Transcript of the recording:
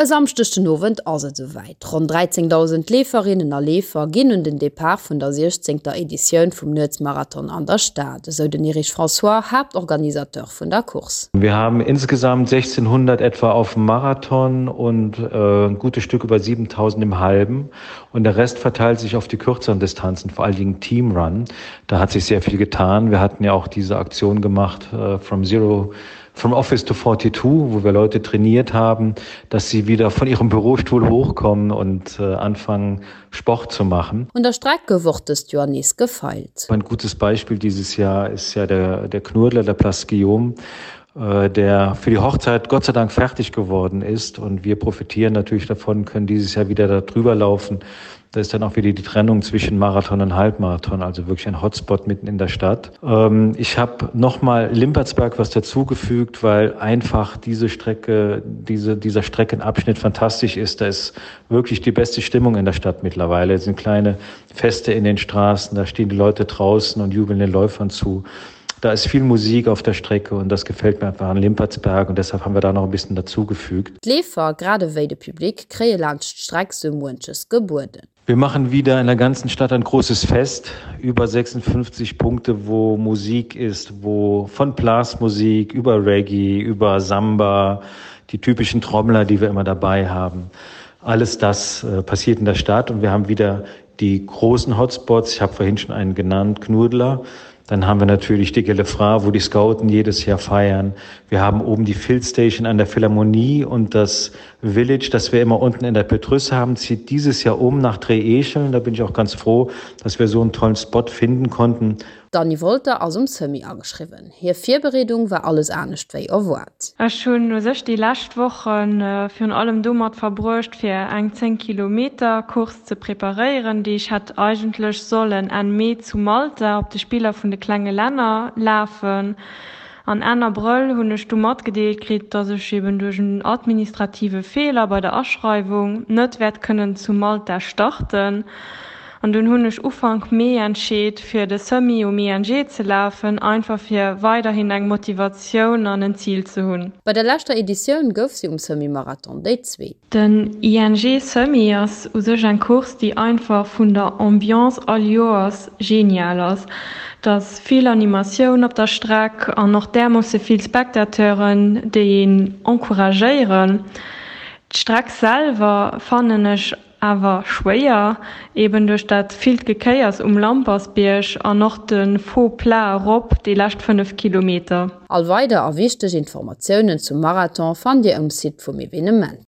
E Samschdeg den Owend ass et esouwäit, Ronn 13.000 Leeferinnen a Leefer ginn un den Depart vun der siechzéngter Editioun vum Nuetsmarathon an der Stad, esou den Erich François, Haaptorganisateur vun der Course. Wir haben insgesamt 1600 etwa auf dem Marathon und ein gutes Stück über 7000 im Halben und der Rest verteilt sich auf die kürzeren Distanzen, vor allen Dingen Teamrun. Da hat sich sehr viel getan. Wir hatten ja auch diese Aktion gemacht from zero From Office to 42, wo wir Leute trainiert haben, dass sie wieder von ihrem Bürostuhl hochkommen und äh, anfangen, Sport zu machen. Un der Streck gouf och dëst Joer nees gefeilt. Ein gutes Beispiel dieses Jahr ist ja der, der Knurdler, der Place Guillaume, äh, der für die Hochzeit Gott sei Dank fertig geworden ist. Und wir profitieren natürlich davon, können dieses Jahr wieder darüber laufen. Da ist dann auch wieder die Trennung zwischen Marathon und Halbmarathon, also wirklich ein Hotspot mitten in der Stadt. Ähm, ich habe nochmal Limpertsberg was dazugefügt, weil einfach diese Strecke, diese, dieser Streckenabschnitt fantastisch ist. Da ist wirklich die beste Stimmung in der Stadt mittlerweile. Es sind kleine Feste in den Straßen, da stehen die Leute draußen und jubeln den Läufern zu. Da ist viel Musik auf der Strecke und das gefällt mir einfach an Limpertsberg und deshalb haben wir da noch ein bisschen dazugefügt. D'Leefer, grad ewéi de Public, kréie laanscht d'Streck sou muenches gebueden. Wir machen wieder in der ganzen Stadt ein großes Fest, über 56 Punkte, wo Musik ist, wo von Blasmusik über Reggae, über Samba, die typischen Trommler, die wir immer dabei haben. Alles das äh, passiert in der Stadt und wir haben wieder die großen Hotspots. Ich habe vorhin schon einen genannt, Knudler. Dann haben wir natürlich die Gelefra, wo die Scouten jedes Jahr feiern. Wir haben oben die Field Station an der Philharmonie und das Village, das wir immer unten in der Petrus haben, zieht dieses Jahr um nach Drehescheln. Da bin ich auch ganz froh, dass wir so einen tollen Spot finden konnten. D'Anny Wolter ass um Semi ageschriwwen. Hir Virbereedung war alles anescht wéi erwaart. Ech hunn u sech déi lescht Woche virun allem domat verbruecht, fir eng 10 Kilometer Course ze preparéieren, déi ech hätt eigentlech sollen Enn Mee zu Malta op de Spiller vun de klenge Länner lafen. An Enn Abrëll hunn ech du matgedeelt kritt, dass ech eben duerch en administrative Feeler bei der Aschreiwung net wäert kënnen zu Malta starten. An dunn hunn ech Ufank Mee entscheet, fir de Semi um ING ze lafen, einfach fir weiderhin eng Motivatioun an en Zil ze hunn. Bei der leschter Editioun gouf si um Semi-Marathon déi Zweet. Den ING Semi ass u sech eng Course, déi einfach vun der Ambiance all Joers genial ass. Et ass vill Animatioun op der Streck an och därmoosse vill Spectateuren, déi een encouragéieren. D'Streck selwer fannen ech Awer schwéier, eben duerch dat villt Gekéiers um Lampersbierg an och de Faux plat erop déi lescht 5 Kilometer. All weider a wichteg Informatiounen zum Marathon fannt Dir um Site vum Evenement.